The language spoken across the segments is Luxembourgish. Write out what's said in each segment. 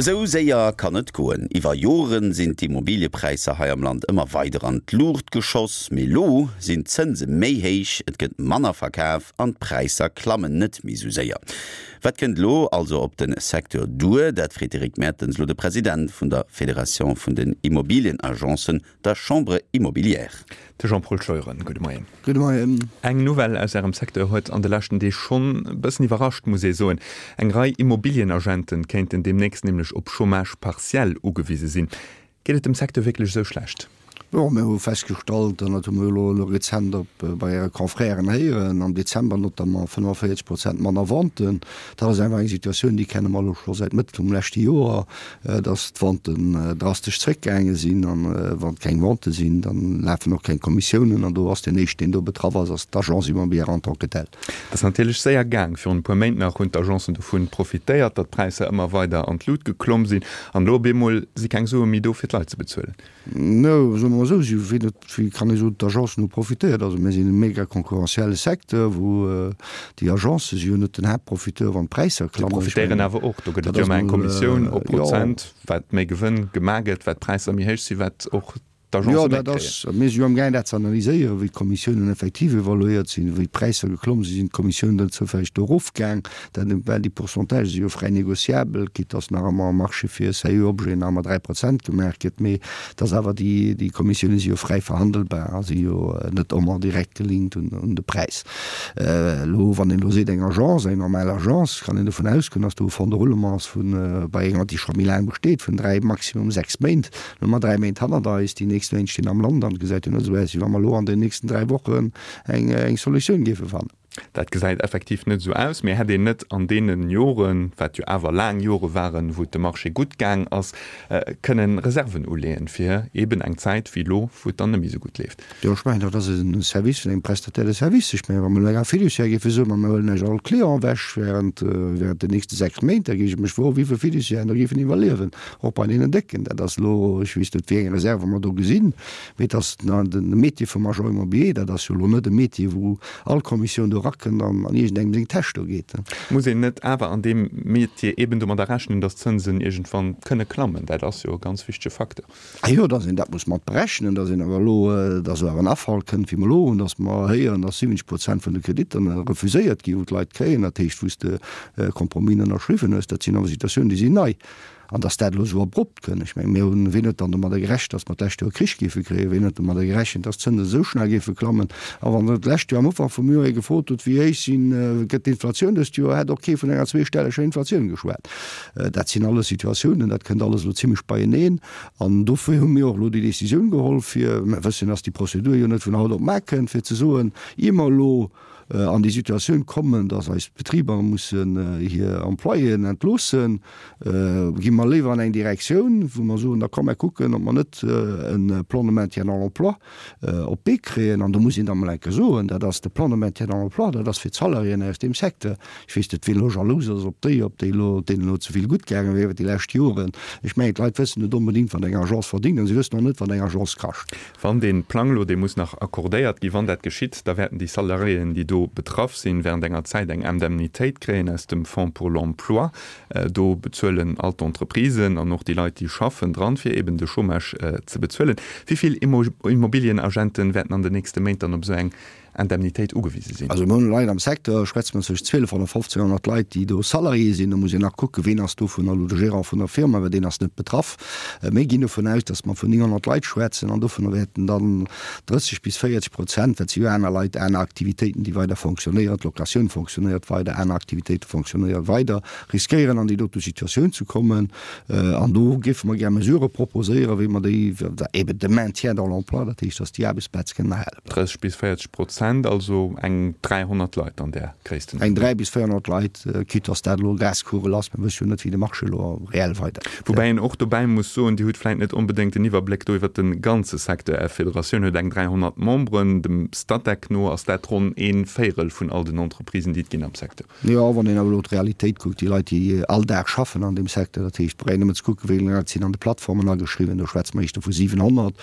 Esou séier kann et goen. Iwwer Joren sinn d'Immobiliepräisser hei am Land ëmmer weider an d'Luucht geschoss. Mee lo sinn d'Zënse méi héich, et gëtt manner verkaf an d'Präisser klammen net méi esou séier. Wat kënnt elo also op de Secteur duer? Dat freet d'Eric Mertens elo de President vun der Federatioun vun den Immobilienagencen, der Chambre Immobilière. De Jean-Paul Scheuren, gudde Moien. Gudde Moien. Eng Nouvelle aus Ärem Secteur huet an de leschten Deeg schonn e bëssen iwwerrascht, muss ee soen. Eng Rei Immobilienagenten kéinten deemnächst nämlech op Chômage partiel ugewise sinn. Geet et dem Secteur wierklech esou schlecht? Jo, mir hu festgestallt, an dat hu mir elo elo rezent op bei Äre Confrèren héieren, am Dezember notamment 45 Prozent manner Venten. Dat ass einfach eng Situatioun, déi kenne mer elo scho säit Mëtt vum leschte Joer. dass d'Venten drastesch zréckgaange sinn an wann keng Vente sinn, dann lafen och keng Kommissiounen an do ass deen éischten, deen do betraff ass, ass d'Agence immobilière en tant que telle. Et ass natierlech séier gaang. Virun e puer Méint nach hunn d'Agencen dovun profitéiert, datt d'Präisser ëmmer weider an d'Lut geklomm sinn an elo op eemol si keng Sue méi do fir d'Leit ze bezuelen. No, soe mer mol esou, si wéi net, wéi kann ee soen, d'Agencen hu profitéiert. Also mir sinn e mega concurrentielle Secteur, wou déi Agencë si jo net den Haaptprofiteur, wann d'Präisser klammen. Déi profitéieren awer och. Do gëtt et jo ëmmer eng Kommissioun op Prozent, wat méi Gewënn gemaach gëtt, wat d'Präisser méi héich sinn, wat och d'Agencë méi kréien. Jo, dat ass, mir si jo amgaang dat ze analyséieren, wéi d'Kommissiounen effektiv evaluéiert sinn, wéi d'Präisser geklomm sinn, sinn d'Kommissiounen dann zoufälleg do erofgaang. Dat, well déi Pourcentagë si jo fräi négociabel, quitte dass nach ëmmer am Marché fir sérieux Objeten nach ëmmer 3 Prozent gemaach gëtt, mee dass awer déi, déi Kommissioune si jo fräi verhandelbar a si jo net ëmmer direkt gelinkt un, un de Präis. Elo, wann een elo seet, eng Agence, eng normal Agence, kann een dovun ausgoen, dass do e Fonds de roulement ass vun, bei enger, déi scho méi laang besteet, vun 3, maximum 6 Méint. Elo hu mer 3 Méint hannert eis, déi nächst Méint stinn am Land an et gesäit jo net esou aus, wéi wa mer elo an den nächsten 3 Wochen eng, eng Solutioun géife fannen. Dat gesäit effektiv net esou aus, mee hätt een net an deene Joren, wat jo awer laang Jore waren, wou et dem Marché gutt gaang ass, kënnen Reserven uleeën, fir eeben eng Zäit wéi elo, wou et dann net méi esou gutt leeft? Jo, ech mengen, dat ass e Service vun engem Prestataire de service. Ech mengen, wa mer elo enger Fiduciaire géife soen, ma mir huelen Iech all Client ewech während, während den nächste 6 Méint, da géif ech mech froen, wéi vill Fiduciairen da géifen iwwerliewen, och bei deenen Décken. Dat ass elo, ech weess net, wéi eng Reserve mer do gesinn, mee et ass de Métier vum Agent immobilier, dat ass jo elo net e Métier, wou all Kommissioun do erakënnt an an iergendengem seng Täsch do geet. Muss een net awer an deem Metier eben domadder rechnen, datt d'Zënsen iergendwann kënne klammen? Dat ass jo e ganz wichtege Facteur. Ah jo, datt een dat muss mat berechnen, datt een awer elo, datt elo awer en Afall kënnt, wéi mer elo hunn, datt mer héieren, datt 70 Prozent vun de Kreditter refuséiert ginn, wou d'Leit kréien, dat heescht, wou s de Compromis ënnerschriwwen hues. Dat sinn awer Situatiounen, déi sinn nei. An datt dat elo esou abrupt kënn, ech mengen, mir hunn, wien huet dann domadder gerechent, datt mer d'lescht Joer Krich géife kréien? Wien huet domadder gerechent, datt d'Zënsen esou schnell géife klammen? A wann der d'lescht Joer am Ufank vum Joer ee gefrot hutt, wéi héich sinn, gëtt d'Inflatioun dëst Joer, hätt och kee vun enger zweestelleger Inflatioun geschwat. Dat sinn alles Situatiounen, dat kënnt alles elo zimlech beieneen. An dofir hu mir och elo déi Décisioun geholl, fir, mer wëssen, datt déi Prozedur jo net vun haut op mar kënnt, fir ze soen, ier mer elo an déi Situatioun kommen, dass eis Betriber mussen hir Employéen entloossen, gi mer léiwer an eng Direktioun, wou mer soen, da komm mer kucken, ob mer net e Plan de maintien dans l'emploi op d'Bee kréien. An do muss een da mol eng Kéier soen, dat ass de Plan de maintien dans l'emploi, dat ass fir d'Salariéen aus deem Secteur. Ech weess net, wien elo jalous ass op déi, ob déi elo, deenen elo ze vill gutt gaange wier iwwer déi lescht Joren. Ech mengen, d'Leit wëssen net onbedéngt, wat eng Agence verdéngt, an si wëssen och net, wat eng Agence kascht. Wann dee Plang elo, dee muss nach accordéiert ginn, wann dat geschitt, da wäerten déi Salariéen, déi do betraff sinn, während enger Zäit eng Indemnitéit kréien aus dem Fonds pour l'emploi. Do bezuelen all d'Entreprisen an och déi Leit, déi schaffen, dran, fir eben de Chômage ze bezuelen. Wéi vill Immobilienagenten wäerten an den nächste Méint dann op esou eng Indemnitéit ugewise sinn. Also mir hunn Leit am Secteur, schwätze mer zwëschen 1200 a 1500 Leit, déi do Salarié sinn. Do muss een nach kucken, ween ass dovunner elo de Gérant vun der Firma, well deen ass net betraff. Mir ginn dovun aus, datt mer vun 900 Leit schwätzen an dovunner wäerten dann 30 bis 40 Prozent, well et si jo aner Leit, aner Aktivitéiten, déi weider fonctionnéieren, d'Locatioun fonctionnéiert weider, aner Aktivitéite fonctionnéiere weider, riskéieren an déi dote Situatioun ze kommen. An do géife mer gär Mesurë proposéieren, wéi mer déi, eben de Maintien dans l'emploi, dat heescht, datt déi Aarbechtsplaze kënnen erhale bleiwen. 30 bis 40 Prozent, also eng 300 Leit an där Gréisstenordnung. Eng 3 bis 400 Leit, quitte datt dat elo Glaskugel ass, mir wësse jo net, wéi de Marché elo reell weidergeet. Woubäi een och dobäi muss soen, Dir hutt vläicht net onbedéngt den Iwwerbléck do iwwert de ganze Secteur. Är Federatioun huet eng 300 Memberen, dem Statec no ass dat ronn ee Véierel vun all den Entreprisen, déi et ginn am Secteur. Jo, wann een awer elo d'Realitéit kuckt, déi Leit, déi all Dag schaffen an deem Secteur, dat heescht, brauch een nëmmen ze kucken, wéi vill Leit sinn an de Plattformen ageschriwwen, do schwätze mer éischter vu 700,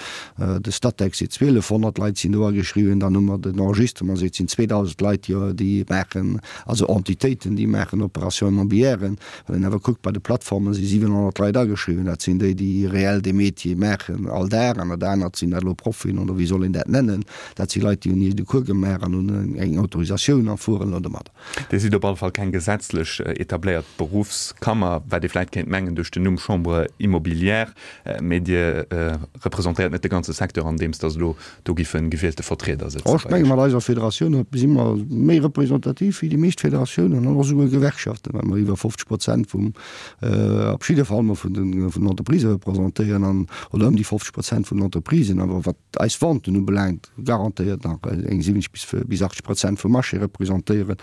de Statec seet 1.200 Leit sinn do ageschriwwen, dann hu mer den. Enregistrement seet, sinn 2.000 Leit, déi, déi maachen, also Entitéiten, déi maachen Opérations immobilièren. Wann een awer kuckt, bei de Plattformen si 700 Leit ageschriwwen, dat sinn déi, déi reell dee Métier maachen all Dag. An dat anert sinn dat elo Proffien oder wéi soll een dat nennen, dat si Leit, déi hunn iergend e Cours gemaach an hunn eng Autorisatioun a fueren elo domadder. Dir sidd op alle Fall keng gesetzlech etabléiert Beruffskammer, wat ee vläit kéint mengen duerch den Numm Chambre immobilière, mee Dir representéiert net de ganze Secteur, andeems datt elo do giffe gewielte Vertrieder sëtzen bei Iech. Ech menge mat eiser Federatioun si mer méi representativ wéi déi meescht Federatiounen an och esouguer Gewerkschaften, well mer iwwer 50 Prozent vum, op jidde Fall mol vun den Entreprisë representéieren an, oder ëm déi 50 Prozent vun den Entreprisen. Awer wat eis Venten ubelaangt, garantéiert nach eng 70 bis 80 Prozent vum Marché representéieren.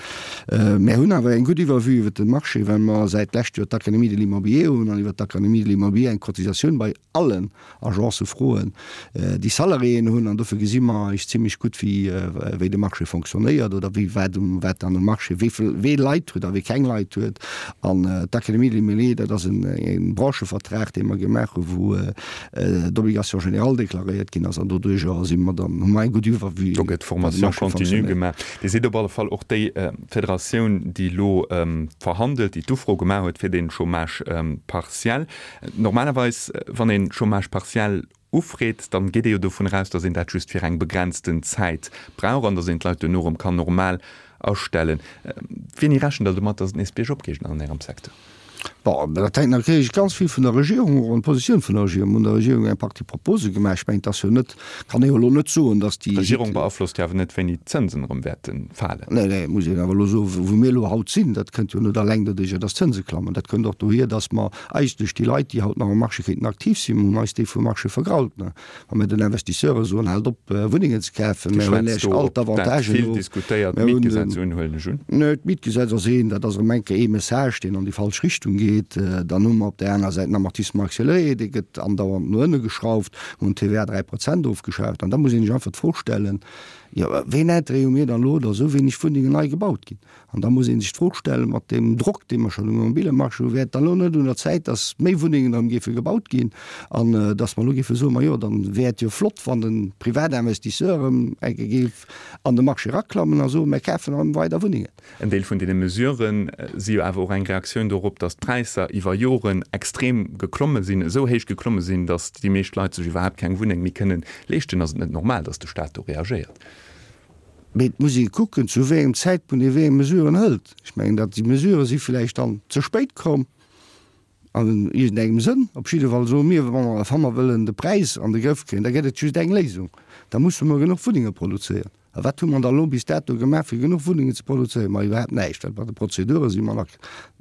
Mär hunn awer eng gutt Iwwervue iwwer de Marché, well mer säit d'lescht Joer d'Académie de l'Immobilier hunn an iwwer d'Académie de l'Immobilier eng Cotisatioun bei allen Agencë froen, déi Salariéen hunn. An dofir gesi mer eis zimlech gutt, wéi wéi de Marché fonctionnéiert oder wéi wat um wat an um Marché wéi vill wee Leit huet a wee keng Leit huet. An d'Académie de l'Immobilier, dat ass en e Branchevertrag, dee mer gemaach hu wou d'Obligation générale deklaréiert ginn ass an doduerjer si mer dann, hu mer eng gutt Iwwervue. Do gëtt Formation continue gemaach. Dir sidd op alle Fall och déi Federatioun, déi elo verhandelt, déi d'Ufro gemaach huet fir dee Chômage partiel. Normalerweis, wann een Chômage partiel ufreet, dann geet ee jo dovun eraus, datt een dat just fir eng begrenzten Zäit brauch an datt een d'Leit duerno erëm kann normal astellen. Wéini rechent Der domat, datt et nees biergop geet an Ärem Secteur? Bon, dat hänkt natierlech ganz vill vun der Regierung och an d'Positioun vun der Regierung. Mir hunn der Regierung eng Partie Propose gemaach. Ech mengen, et ass jo net, kann ee jo elo net soen, datt déi. D'Regierung beaflosst jo awer net, wéini d'Zënsen erëm wäerte falen. Nee, nee, muss een awer elo soen, wou mir elo haut sinn, dat kënnt jo net alleng doduerjer, datt d'Zënse klammen. Dat kënnt och dohier, datt mer eigentlech déi Leit, déi haut nach um Marché kéinten aktiv sinn, mir hunn eis déi vum Marché vergrault. Wa mir den Investisseure soen, haalt op Wunnengen ze kafen, mir huelen Iech all d'Avantagen of. Vill diskutéiert Mietgesetz un, huelen ech un. Nee, d'Mietgesetz ass een, dat ass erëm eng Kéier ee Message, deen an déi falsch Richtung geet. Dann hu mer op där aner Säit den Amortissement accéléré, dee gëtt andauernd no ënne geschrauft. Mir hunn d'TVA 3 Prozent ofgeschaaft. An da muss een sech einfach d'Fro stellen, jo wéi en Intérêt hu mir dann elo, datt esou wéineg Wunnengen nei gebaut ginn? An da muss ee sech d'Fro stellen, mat deem Drock, dee mer schonn um Immobiliemarché hunn, wär et dann elo net un der Zäit, dass méi Wunnengen erëm géife gebaut ginn an dass mer elo géife soen, majo, dann wär et jo flott, wann de Privatinvestisseur erëm eng Kéier géif an de Marché eraklammen a soen, mir kafen erëm weider Wunnengen. En Deel vun deene Mesurë si jo awer och eng Reaktioun dorop, dass d'Präisser iwwer Joren extrem geklomme sinn, esou héich geklomme sinn, dass déi meescht Leit sech iwwerhaapt keng Wunneng méi kënnen leeschten. Ass et net normal, dass de Staat do reagéiert? Mee et muss ee kucken, zu wéi engem Zäitpunkt ee wéi eng Mesuren hëlt. Ech mengen, datt déi Mesurë si vläicht dann ze spéit komm an iergendengem Sënn. Op jidde Fall soe mir, wa mer, wa mer wëllen de Präis an de Grëff kréien, da gëtt et just eng Léisung, da musse mer genuch Wunnenge produzéieren. A wat hu mer da elo bis dato gemaach, fir genuch Wunnengen ze produzéieren? Ma iwwerhaapt näischt, well bei de Prozedure si mer nach,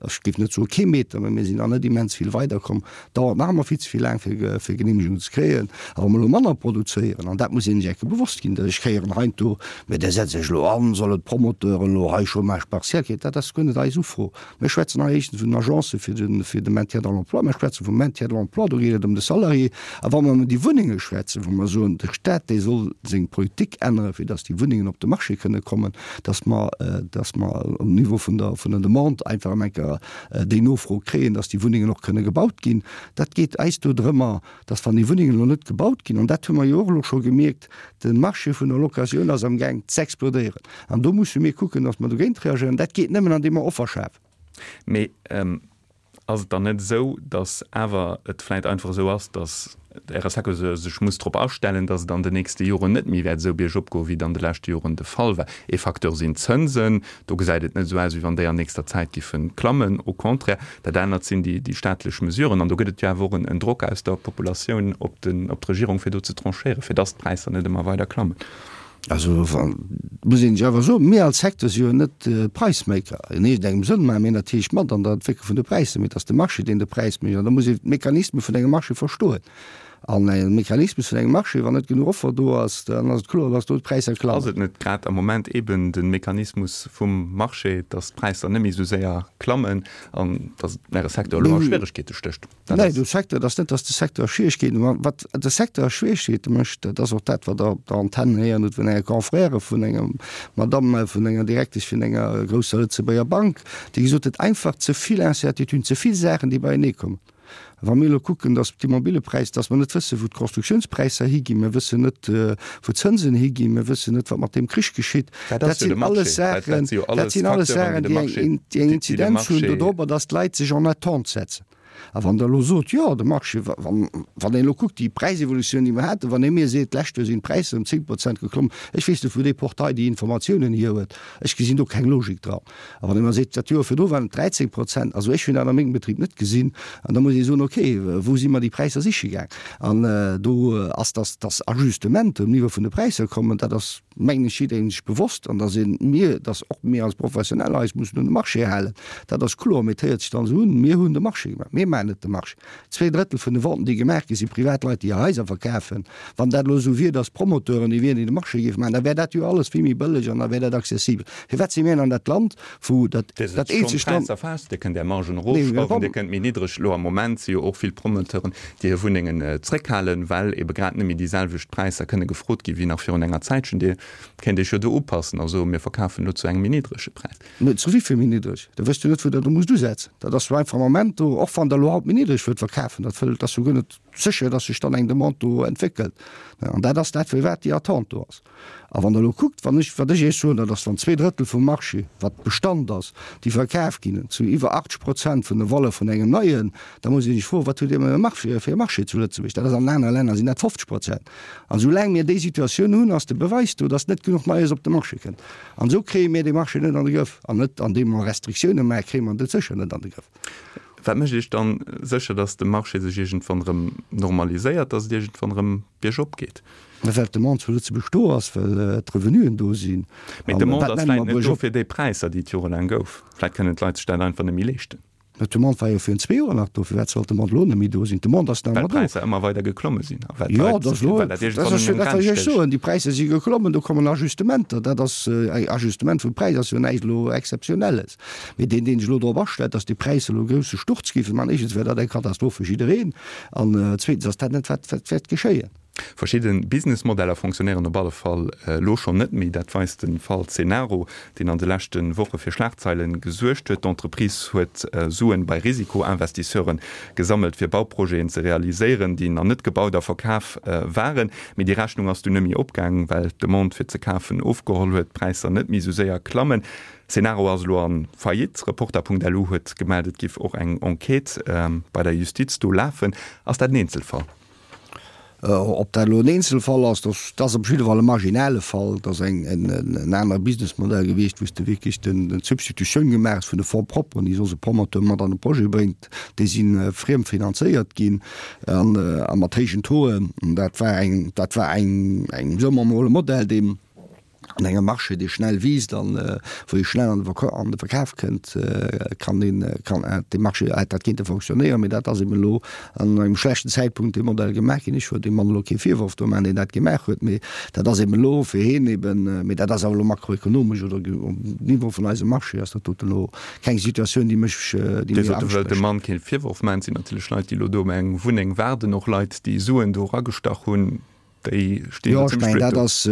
ech géif net soe kee Meter, mä mir sinn nach net immens vill weiderkomm. Dauert nach ëmmer vill ze vill laang fir fir Genehmegungen ze kréien. A wa mer elo manner produzéieren, an dat muss een sech enke bewosst ginn, ech héieren heiansdo, mä där setzt Iech elo an, sollen d'Promoteuren elo hei Chômage partiel kréien. Dat ass guer net eis Ufro. Mir schwätzen hei éischtens vun den Agencë fir de fir de Maintien dans l'emploi, mir schwätze vum Maintien de l'emploi, do geet et ëm de Salarié. A wa mer ëm déi Wunnenge schwätzen, wou mer soen, de Stat dee soll seng Politik änneren, fir datt déi Wunnengen op de Marché kënne kommen, datt mer datt mer um Niveau vun der vun der Demande einfach ëm enker déi Nofro kréien, dass déi Wunnengen och kënne gebaut ginn. Dat geet eis do drëmmer, dass wann déi Wunnengen elo net gebaut ginn, an dat hu mer jo och elo scho gemierkt, de Marché vun der Locatioun ass amgaang z'explodéieren. An do musse mir kucken, dass mer dogéint reagéieren. Dat geet nëmmen andeem mer Offer schafen. Mee ass et dann net esou, dass awer et vläicht einfach esou ass, dass Äre Secteur sech muss drop astellen, datt et an den nächste Joren net méi wäert esou biergop goen, wéi et an de leschte Joren de Fall war. Ee Facteur sinn d'Zënsen. Do gesäit et net esou aus, wéi wann déi an nächster Zäit giffe klammen. Au contraire. Dat anert sinn déi staatlech Mesuren. An do gëtt et jo awer och en Drock aus der Populatioun op d'Regierung, fir do ze tranchéieren, fir datt d'Präisser net ëmmer weider klammen. Also muss een sech awer soen, mir als Secteur si jo net Price-Maker. In iergendengem Sënn maache mir natierlech mat an der Entwécklung vun de Präisser, mee et ass de Marché, deen de Präis mécht. An da muss een d'Mechanisme vun engem Marché verstoen. An e Mechanismus vun engem Marché, wann net genuch Offer do ass, dann ass et kloer, dass do d'Präisser klammen. Ass et net grad am Moment eeben de Mechanismus vum Marché, dass d'Präisser net méi esou séier klammen an dass et äre Secteur elo a Schwieregkeete stécht? Nee, de Secteur, et ass net, datt de Secteur a Schwieregkeeten ass. Wat de Secteur a Schwieregkeete mécht, dat ass och dat, wat Der op der Antenn héieren hutt vun enger Confrère vun enger Madamm, vun enger Direktesch vun enger grousser Lëtzebuerger Bank, déi gesot huet, einfach ze vill Incertituden, ze vill Saachen, déi beienee kommen. Wa mir elo kucken, datt d'Immobilepräis, datt mer net wëssen, wou d'Constructiounspräisser higinn, mir wëssen net, wou d'Zënsen higinn, mir wëssen net, wat mat deem Krich geschitt, dat sinn alles Saachen, dat sinn alles Saachen, déi eng, déi eng Inzidenz hunn dodrobber, datt d'Leit sech en attente setzen. A wann Der elo sot, jo, de Marché, wann een elo kuckt, déi Präisevolutioun, déi mer haten, wann ee mir seet, d'lescht Joer sinn d'Präisser ëm 10 Prozent geklommen, ech weess net, wou dee Portail déi Informatiounen hier huet, ech gesinn do keng Logik dran. A wann ee mer seet, dat Joer virdru waren et 13 Prozent, also ech hunn dat a mengem Betrib net gesinn, an da muss ee soen, okay, wou si mer déi Präisser siche gaang? An do ass, dass, dass Ajustementer um Niveau vun de Präisser kommen, dat ass, mengen ech, jidderengem sech bewosst an dass ee mir, dass och mir als Professioneller eis mussen un de Marché halen, dat ass kloer. Mee et héiert sech dann esou un, mir hunn de Marché gemaach. Mir maachen net de Marché. 2/3 vun de Venten, déi gemaach ginn, si Privatleit, déi hir Haiser verkafen. Wann dat elo esou wier, dass d'Promoteuren déi wieren, déi de Marché géife maachen, da wär dat jo alles vill méi bëlleg an da wär dat accessibel. Firwat si mir an dat Land, wou dat Dir sëtzt schonn eenzegt Land. d'Präisser fest, Dir kënnt Är Margen erofschrauwen, Dir kënnt méi niddreg. Elo am Moment si jo och vill Promoteuren, déi hir Wunnengen zréckhalen, well ebe grad net méi déi selwecht Präisser kënne gefrot gi wéi nach virun enger Zäitchen. Dir kéint Iech jo do upassen a soen, mir verkafen elo zu engem méi niddrege Präis. Mä zu wéi vill méi niddreg? Da wësst jo net, wou Der do musst usetzen. Dat ass jo einfach am Ament do, och wann Der elo haut méi niddreg wëllt verkafen, dat wëllt, ass jo guer net sécher, dass sech dann eng Demande do entwéckelt. An dat ass dat, firwat déi Attente do ass. A wann Der elo kuckt, wann ech, wat ech Iech soen, dat ass, wann 2/3 vum Marché, wat Bestand ass, déi verkaf ginn, zu iwwer 80 Prozent vun der Valeur vun engem neien, da muss ee sech froen, wat hutt Dir fir e Marché zu Lëtzebuerg? Dat ass an anere Länner sinn dat 50 Prozent. An esoulaang mir déi Situatioun hunn, ass de Beweis do, dass net genuch Neies op de Marché kënnt. An esou kréie mir dee Marché net an de Grëff. An net andeem mer Restriktioune maachen, kréie mer en sécher net an de Grëff. Wat mécht Iech dann sécher, dass de Marché sech iergendwann erëm normaliséiert, dass et iergendwann erëm biergop geet? Well d'Demande zu Lëtzebuerg do ass, well d'Revenuen do sinn. Mee d'Demande ass vläicht net do fir déi Präisser, déi et jorelaang gouf. Vläicht kënnen d'Leit sech dat einfach net méi leeschten. Mä d'Demande war jo virun zwee Joer nach do. Firwat sollt d'Demande elo net méi do sinn? D'Demande ass nach ëmmer do. Well d'Präisser ëmmer weider geklomme sinn a well d'Leit, well dat iergendwann un eng Grenz stéisst. Déi Präisser si geklommen, do kommen Ajustementer. Dat ass, Ajustement vum Präis ass jo näischt elo Exzeptionelles. Mee deen, deen sech elo drop astellt, datt déi Präisser elo e grousse Sturz géife man, éischtens wär dat eng Katastroph fir jiddereen an zweetens ass dat net, wat wäert geschéien. Verschidde Businessmodeller fonctionnéieren op alle Fall elo schonn net méi. Dat weist de Fall Cenaro, deen an de leschte Woche fir Schlagzeile gesuergt huet. D'Entreprise huet Suen bei Risikoinvestisseure gesammelt, fir Bauprojeten ze realiséieren, déi nach net gebaut a verkaf waren. Mee déi Rechnung ass dunn net méi opgaangen, well d'Demande fir ze kafen ofgeholl huet, d'Präisser net méi esou séier klammen. Cenaro ass elo a Faillite. Reporter.lu huet gemellt, et giff och eng Enquête bei der Justiz do lafen. Ass dat en Eenzelfall? Ob dat elo en Eenzelfall ass, dat ass op jidde Fall e marginale Fall. Dat ass en anere Businessmodell gewiescht, wou s de wierklech d'Substitutioun gemaach hues vun de Fonds propres, déi soss e Promoteur mat an e Projet bréngt. Déi si friem finanzéiert ginn a mat héijen Tauxen. Dat war eng, dat war eng, soe mer emol, e Modell, deen, An engem Marché, dee schnell wiisst an wou ee schnell an de Verkaf kënnt, kann een, kann dee Marché, hätt dat kéinte fonctionnéieren. Mee dat ass eben elo an engem schlechten Zäitpunkt dee Modell gemaach ginn. Ech wëll deem Mann elo kee Virworf do maachen, deen dat gemaach huet, mee dat ass eben elo fir hien eben, mee dat ass awer elo makroekonomesch oder um Niveau vun eisem Marché ass dat doten elo keng Situatioun, déi mech, déi mir Angscht mécht. Dem Mann kee Virworf maachen. Et sinn natierlech Leit, déi elo do ëm eng Wunneng waarden, och Leit, déi Suen do eragestach hunn. Déi stinn jo, ech mengen, dat ass,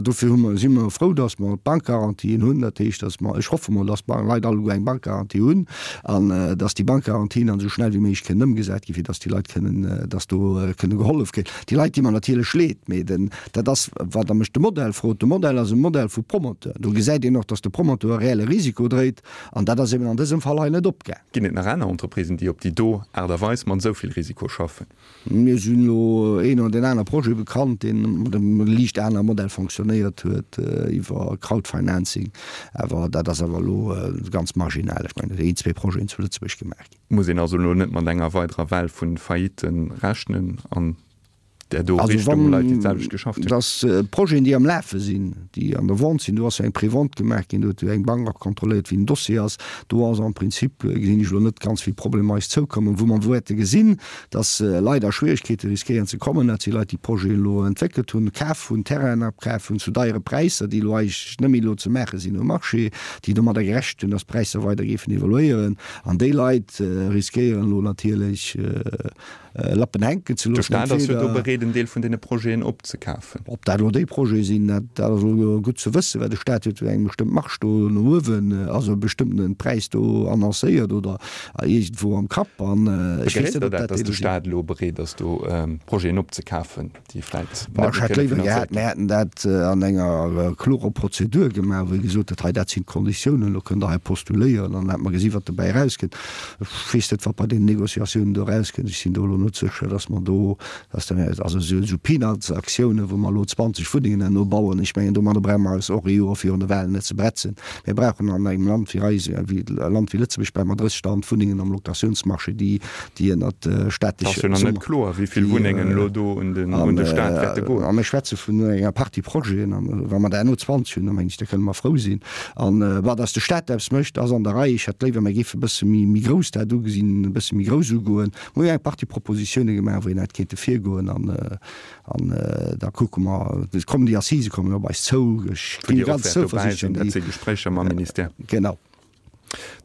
dofir hu mer, si mer frou, datt mer d'Bankgarantien hunn. Dat heescht, datt mer, ech hoffe mol, datt d'Leit alleguer eng Bankgarantie hunn an datt déi Bankgarantien dann esou schnell wéi méiglech kënnen ëmgesat ginn, fir datt déi Leit kënnen, datt do kënne gehollef ginn. Déi Leit di mer natierlech leed, mee den, dat ass, wat Der mech de Modell frot, de Modell ass e Modell vu Promoteur. Do gesäit een och, datt de Promoteur e reelle Risiko dréit an dat ass eben an dësem Fall hei net opgaang. Ginn et nach aner Entreprisen, déi op déi do Aart a Weis mat esou vill Risiko schaffen? Mir sinn elo een oder deen aner Projet bekannt, deen mat engem liicht anere Modell fonctionnéiert huet, iwwer Crowdfinancing. Awer dat ass awer elo ganz marginal. Ech mengen, dat sinn een, zwee Projeten zu Lëtzebuerg gemaach ginn. Muss een also elo net mat enger weiderer Well vu Faillitten rechnen an där do Richtung, Leit, déi d'selwecht geschafft hunn? Also wann, dass Projeten, déi am Lafe sinn, déi an der Vente sinn, do ass jo eng Prévente gemaach ginn, do huet jo eng Bank och kontrolléiert, wéi den Dossier ass. Do ass am Prinzip, gesinn ech elo net ganz vill Problemer eis zoukommen. Wou mer wäerte gesinn, dass Leit a Schwierigkeete riskéieren ze kommen, dat si Leit, déi Projeten elo entwéckelt hunn, kaf hunn, Terrainen apkaf hunn zu deiere Präisser, déi elo eigentlech net méi elo ze maache sinn um Marché, déi domadder gerechent hunn, dass d'Präisser weider géifen evoluéieren. An déi Leit riskéieren elo natierlech, Lappen hänken ze loossen. De Staat ass jo do bereet. bereet en Deel vun deene Projeten opzekafen. Ob dat elo déi Projete sinn, dat dat ass elo gutt ze wëssen, well de Staat huet jo eng bestëmmt Marge do no uewen, also e bestëmmtene Präis do annoncéiert oder iergendwou am Kapp. An ech weess net, ob dat déi do sinn. Begréisst Der dat, datt de Staat elo bereet ass do Projeten opzekafen? déi vläit net méi kënne finanzéiert ginn. Ech hätt léiwer gehat, mir hätten dat an enger klorer Prozedur gemaach, wou ee gesot huet, hei dat sinn d'Konditiounen, elo kënnt Der hei postuléieren an dann hätte mer gesi wat dobäi erauskënnt. Ech weess net, wat bei deenen Négociatiounen do erauskënnt. Ech sinn do elo net sécher, datt mer do, datt der, also esou Peanuts-Aktiounen, wou mer elo 20 Wunnengen herno bauen, ech mengen domadder brauche mer eis och ee Joer virun de Wahlen net ze bretzen. Mir brauchen an engem Land wéi eis, wéi e Land wéi Lëtzebuerg, brauche mer 30.000 Wunnengen am Locatiounsmarché, déi déi ënnert staatleche. Et ass jo nach net kloer, wéi vill Wunnengen elo do un de Staat wäerte goen. A mir schwätze vun enger Partie Projeten, an wa mer der herno 20 hunn, da mengen ech, da kënne mer frou sinn. An bon, datt de Staat eppes mécht, ass an der Rei. Ech hätt léiwer, mir géife e bësse méi grouss dat ugesinn, e bësse méi grouss ugoen. Mir hu jo eng Partie Propositioune gemaach, wéi een hätt kéinte virgoen, an da kucke mer. Et kommen déi Assisë kommen op eis zou. Ech gi ganz zouversiichtlech. Dat si Gespréicher mam Ministère. Genau.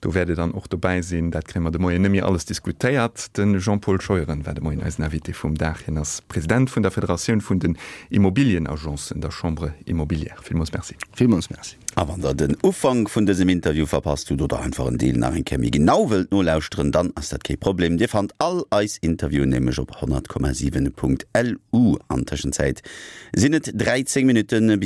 Do wäert Dir dann och dobäi sinn. Dat kréie mer de Moien net méi alles diskutéiert. De Jean-Paul Scheuren war de Moien eisen Invité vum Dag. Hien ass President vun der Federatioun vun den Immobilienagencen, der Chambre Immobilière. Villmools Merci. Villmools Merci. A wann der den Ufank vun dësem Interview verpasst hutt oder einfach en Deel nach eng Kéier méi genau wëllt nolauschteren, dann ass dat kee Problem. Dir fannt all eis Interviewen nämlech op 100,7.lu. An Tëschenzäit sinn et 13 Minutte bis.